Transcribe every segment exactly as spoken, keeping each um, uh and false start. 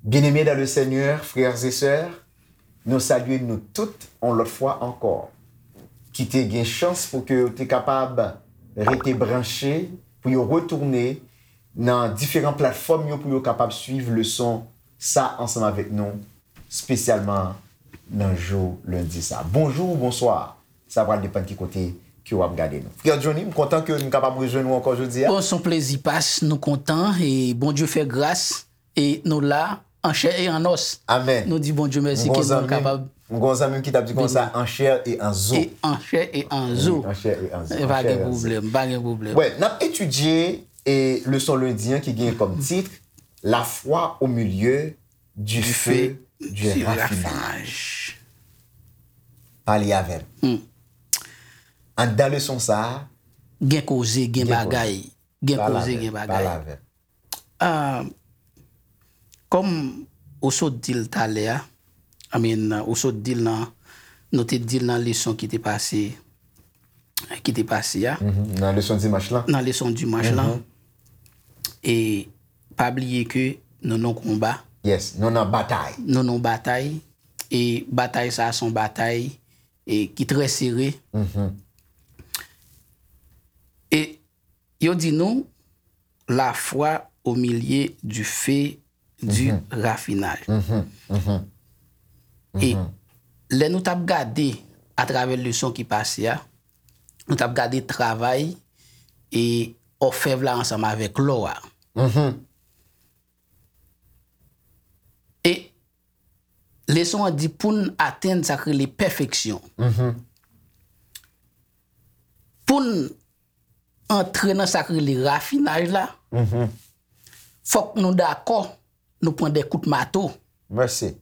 Bien-aimés dans le Seigneur, frères et sœurs, nou salye nou tout yon lòt fwa ankò ki te gen chans pou ke yo te kapab rete branche, pou yo retounen nan diferan platfòm yo pou yo kapab swiv leson sa ansanm avèk nou, espesyalman nan jou lendi sa. Bonjou, bonswa. Sa pral depann ki kote ke w ap gade nou. Frè Johnny, m kontan ke m kapab rejwenn ou ankò jodi a. Bon, se yon plezi pas, nou kontan e Bondye fè gras e nou la an chè e an nòs. Amèn. Nou di Bondye mèsi ke nou kapab. M gon zanmi m ki t ap di konsa, an chè e an zo. E an chè e an zo. Wi, an chè e an zo. E pa gen pwoblèm, pa gen pwoblèm. Wè, n ap etidye e leson lendi an ki gen kòm tit La foi au milieu du feu du raffinage. Pale avè m. Anndan leson sa a, gen koze, gen bagay. Gen koze, gen bagay. Pale avè m. Ah, kòm ou sot di l talè a, I mean, ou sot di l nan, nou te di l nan leson ki te pase, ki te pase a. Mhm. Nan leson dimanch lan. Nan leson dimanch lan. Mhm. E pa bliye ke nou nan konba. Yes, nou nan batay. Nou nan batay. E batay sa a se yon batay e ki trè sere. Mhm. E yo di nou, la foi au milieu du feu du raffinage. Mhm, mhm. E lè nou t ap gade atravè leson ki pase a, nou t ap gade travay e òfèv la ansanm avèk lò a. Mhm. E leson an di pou n atenn sa k rele pèfeksyon. Mhm. Pou n antre nan sa k rele rafinaj la, mhm, fòk nou dakò nou pran de kout mato. Mèsi.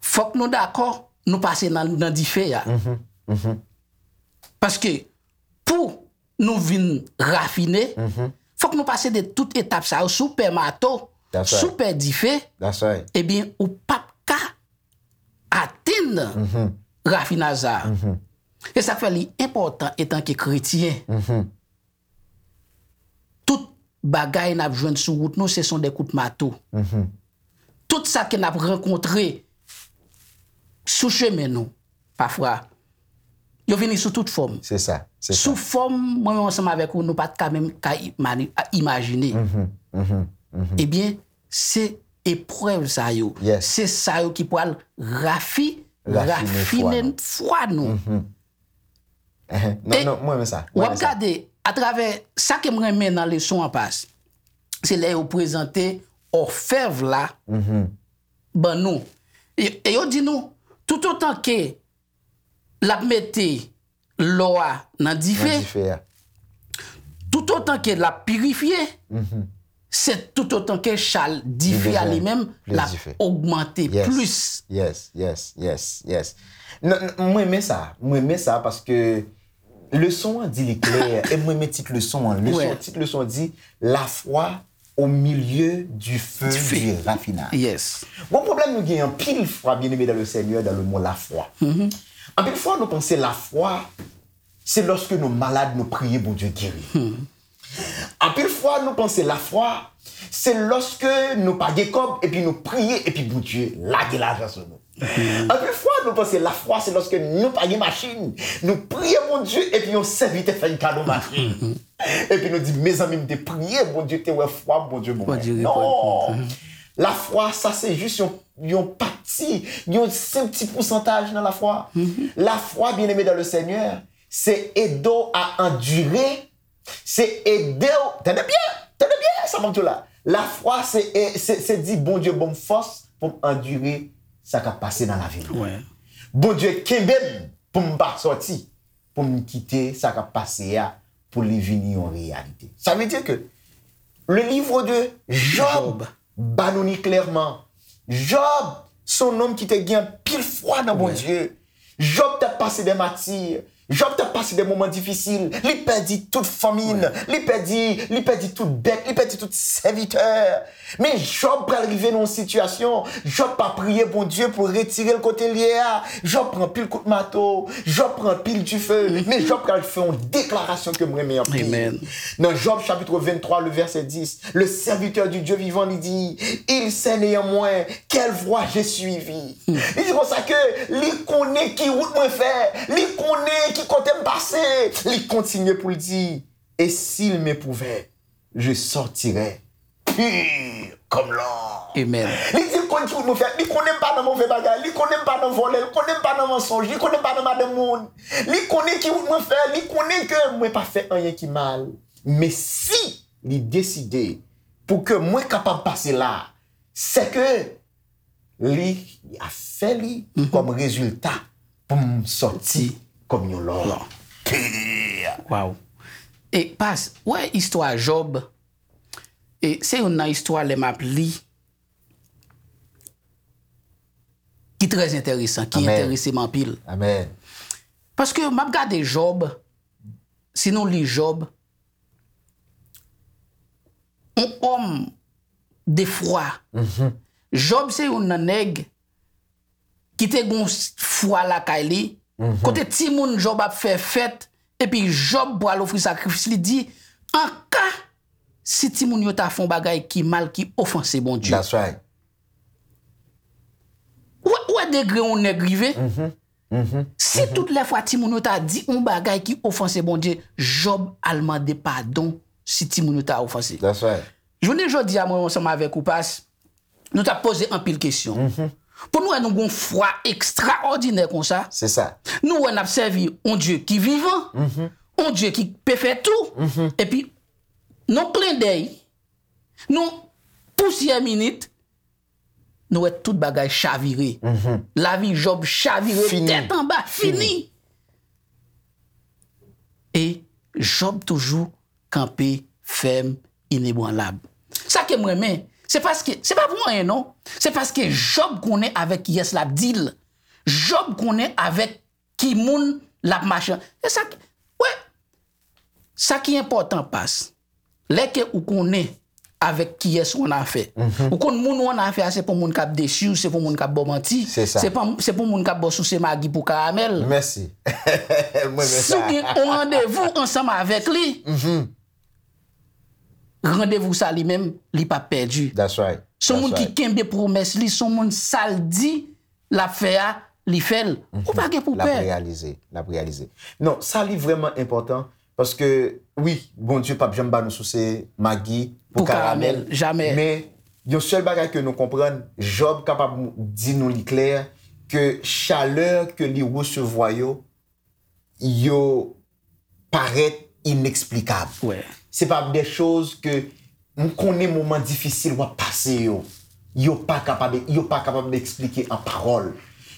Fòk nou dakò nou pase nan, nan dife a. Mhm, mhm. Paske pou nou vin rafine, mhm, fòk nou pase de tout etap sa yo, si w pè mato, that's right, si w pè dife, that's right, ebyen, ou p ap ka atenn, mhm, rafinaj sa a. Mhm. E sa k fè li enpòtan etanke kretyen. Mhm. Tout bagay n ap jwenn sou wout nou, se son de kout mato. Mhm. Tout sa ke n ap rankontre sou chemen nou, pafwa, yo vini sou tout fòm. Se sa, se sa. Sou fòm, mwen menm ansanm avèk ou, nou pa t ka menm ka imani-, a, imajine. Mhm, mhm, mhm. Ebyen, se eprèv sa yo. Yes. Se sa yo ki pral rafi-, rafine fwa nou. Rafine fwa nou. Mhm. Ehe. Non, e non, mwen renmen sa. Mwen renmen sa. W ap gade, atravè sa ke m renmen nan leson an pas, se lè yo prezante òfèv la, mhm, ban nou. E, e yo di nou, toutotan ke l ap mete lò a nan dife, nan dife a, toutotan ke l ap pirifye, mhm, se toutotan ke chal dife a li menm, l ap ogmante plis. Yes, yes, yes, yes. Non, non, mwen renmen sa. Mwen renmen sa paske leson an di li klè, e mwen renmen tit leson an. Leson, tit leson an di, La foi au milieu du feu du raffinage. Yes. Bon, pwoblèm nou gen anpil fwa, bien-aimés dans le Seigneur, dans le mot la foi. Mhm. Anpil fwa, nou panse lafwa, se lòske nou malad, nou priye, Bondye geri. Hmm. Anpil fwa, nou panse lafwa, se lòske nou pa gen kòb, epi nou priye, epi Bondye lage lajan sou nou. Mhm. Anpil fwa, nou panse lafwa, se lòske nou pa gen machin, nou priye Bondye, epi yon sèvitè fè n kado machin. Mhm. Epi nou di, mezanmi, m te priye, Bondye te wè fwa m, Bondye ban mwen. Bondye reponn. Non! Mhm. Lafwa, sa se jis yon, yon pati, yon senp ti pousantaj nan lafwa. Mhm. Lafwa, bien-aimés dans le Seigneur, se ede w a andire, se ede w, tande byen, tande byen, sa m ap di w la. Lafwa, se, e, se, se di, Bondye ban m fòs pou m andire sa k ap pase nan lavi m. Wi. Bondye kenbe m pou m pa sòti, pou m kite sa k ap pase a, pou li vini yon reyalite. Sa vle di ke le livre de Job, Job, ba nou li klèman. Job, se yon nonm ki te gen anpil fwa nan Bondye. Job t ap pase de mati, Jòb t ap pase de moman difisil. Li pèdi tout fanmi l. Li pèdi, li pèdi tout bèt. Li pèdi tout sèvitè. Men Jòb pral rive nan yon sitiyasyon. Jòb pa priye Bondye pou retire l kote l ye a. Jòb pran pil kout mato. Jòb pran pil dife. Men Jòb pral fè yon deklarasyon ke m renmen anpil. Nan Jòb chapit venntwa, le vèsè dis, le serviteur du Dieu vivant li di, il sait néanmoins quelle voie j'ai suivi. Li di konsa ke li konnen ki wout mwen fè, li konnen ki kote m pase. Li kontinye pou l di, et s'il m'éprouvait, je sortirais pur comme l'or. Amen. Li di l konn ki wout mwen fè, li konnen m pa nan move bagay, li konnen m pa nan vòlè, li konnen m pa nan mansonj, li konnen m pa nan madanm moun. Li konnen ki wout mwen fè, li konnen ke mwen pa fè anyen ki mal. Men si li deside pou ke mwen kapab pase la, se ke li a fè li kòm rezilta pou m sòti kòm yon lò. Lò. Pè. Waw. E pas, wè istwa Jòb, e se youn nan istwa lè m ap li ki trè enteresan, ki enterese m anpil. Amèn. Paske m ap gade Jòb, si nou li Jòb, yon òm de fwa. Jòb se youn nan nèg ki te gon fwa lakay li, kote timoun Jòb ap fè fèt, epi Jòb pral ofri sakrifis, li di, an ka si timoun yo ta fè yon bagay ki mal, ki ofanse Bondye. That's right. Ou wè, ou wè degre yon nèg rive? Si tout lè fwa timoun yo ta di yon bagay ki ofanse Bondye, Jòb al mande padon si timoun yo ta ofanse. That's right. Jounen jodi a, mwen ansanm avèk ou, pas, nou t ap poze anpil kesyon. Pou nou wè nou gon fwa ekstraòdinè konsa. Se sa. Nou wè n ap sèvi yon Dye ki vivan, yon Dye ki pe fè tou, epi nan klendèy, nan pousyè minit, nou wè tout bagay chavire. Lavi Jòb chavire tèt anba, fini. E Jòb toujou kanpe fèm, inebranlab. Sa ke m renmen, se paske, se pa pou anyen non, se paske Jòb konnen avèk kiyès l ap deal. Jòb konnen avèk ki moun l ap mache. E sa k, wè, sa ki enpòtan pas, lè ke ou konnen avèk kiyès ou annafè. Ou konn moun ou annafè a, se pou moun k ap desi w, se pou moun k ap ba w manti, se pou, se pou moun k ap ba w souse magi pou karamèl. Mèsi. Mwen renmen sa. Si w gen yon randevou ansanm avèk li, randevou sa li menm, li p ap pèdi. That's right. Se yon moun ki kenbe pwomès li, se yon moun sa l di l ap fè a, li fè l. Ou pa gen pou pè. L ap reyalize, l ap reyalize. Non, sa li vrèman enpòtan, paske, wi, Bondye p ap janm ba nou souse magi pou karamèl, jamè. Men, yon sèl bagay ke nou konprann, Jòb kapab di nou li klè, ke chalè ke li resevwa yo, yo parèt ineksplikab. Se pa de choz ke m konnen moman difisil w ap pase yo. Yo pa kapab, yo pa kapab eksplike an pawòl.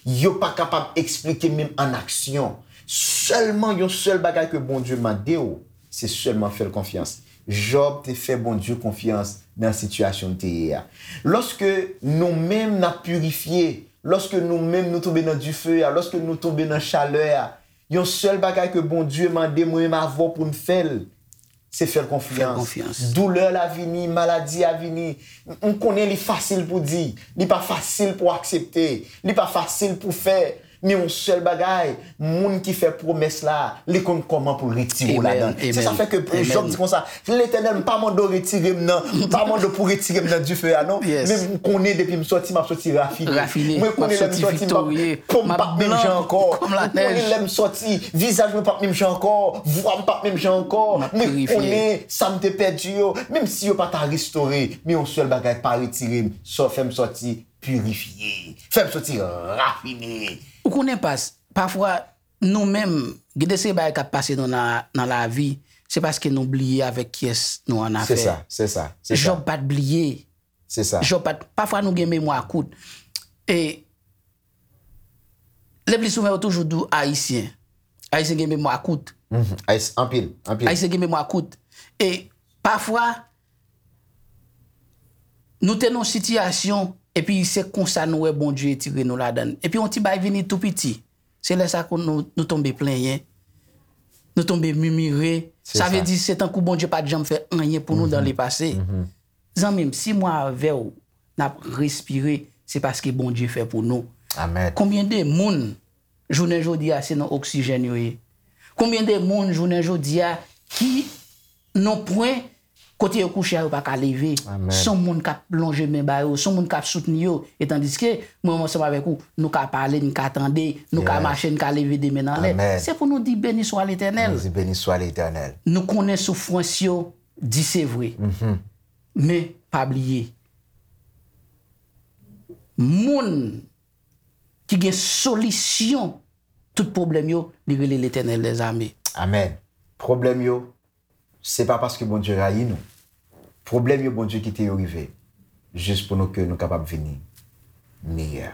Yo pa kapab eksplike menm an aksyon. Sèlman yon sèl bagay ke Bondye mande w, se sèlman fè l konfyans. Jòb te fè Bondye konfyans nan sitiyasyon l te ye a. Lòske nou menm n ap pirifye, lòske nou menm nou tonbe nan dife a, lòske nou tonbe nan chalè a, yon sèl bagay ke Bondye mande mwen menm avè w pou n fè l, se fè l konfyans. Doulè la vini, maladi a vini. M konnen li fasil pou di, li pa fasil pou aksepte, li pa fasil pou fè. Men yon sèl bagay, moun ki fè pwomès la, li konn kòman pou l retire w ladan l. Se sa fè ke Jòb di konsa, Letènèl, m pa mande w retire m nan, m pa mande w pou retire m nan dife a non. Men m konnen depi m sòti, m ap sòti rafine. Mwen konnen lè m sòti, m p ap, po m p ap menm jan ankò. M konnen lè m sòti, vizaj mwen p ap menm jan ankò, vwa m p ap menm jan ankò. Mwen konnen sa m te pèdi yo, menm si yo pa ta restore, men yon sèl bagay pa retire m, fè m sòti pirifye. Fè m sòti rafine. Ou konnen pas, pafwa, nou menm, gen de seri bagay k ap pase nou nan, nan lavi, se paske nou bliye avèk kiyès nou annafè. Se sa, se sa, se sa. Jòb pa t bliye. Se sa. Jòb pa t, pafwa nou gen memwa kout. E, le pli souvan yo toujou di w Ayisyen. Ayisyen gen memwa kout. Ayis-, anpil, anpil. Ayisyen gen memwa kout. E, pafwa, nou te nan yon sitiyasyon, epi se konsa nou wè Bondye retire nou ladan l. Epi yon ti bagay vini tou piti. Se lè sa ke nou, nou tonbe plenyen. Nou tonbe mimire. Sa vle di se tankou Bondye pa t janm fè anyen pou nou dan lepase. Zanmi m, si mwen avè w n ap respire, se paske Bondye fè pou nou. Konbyen de moun jounen jodi a se nan oksijèn yo ye? Konbyen de moun jounen jodi a ki nan pwen kote yo kouche a yo pa ka leve? Se yon moun k ap lonje men ba yo, se yon moun k ap soutni yo. E tandiske mwen menm ansanm avèk ou, nou ka pale, n ka tande, nou ka mache, n ka leve de men nan lè. Se pou nou di beni swa Letènèl. Nou konnen soufrans yo di se vre. Men pa bliye, moun ki gen solisyon tout pwoblèm yo, li rele Letènèl dèzame. Amèn. Pwoblèm yo, se pa paske Bondye rayi nou. Pwoblèm yo, Bondye kite yo rive jis pou nou, ke nou kapab vini meyè.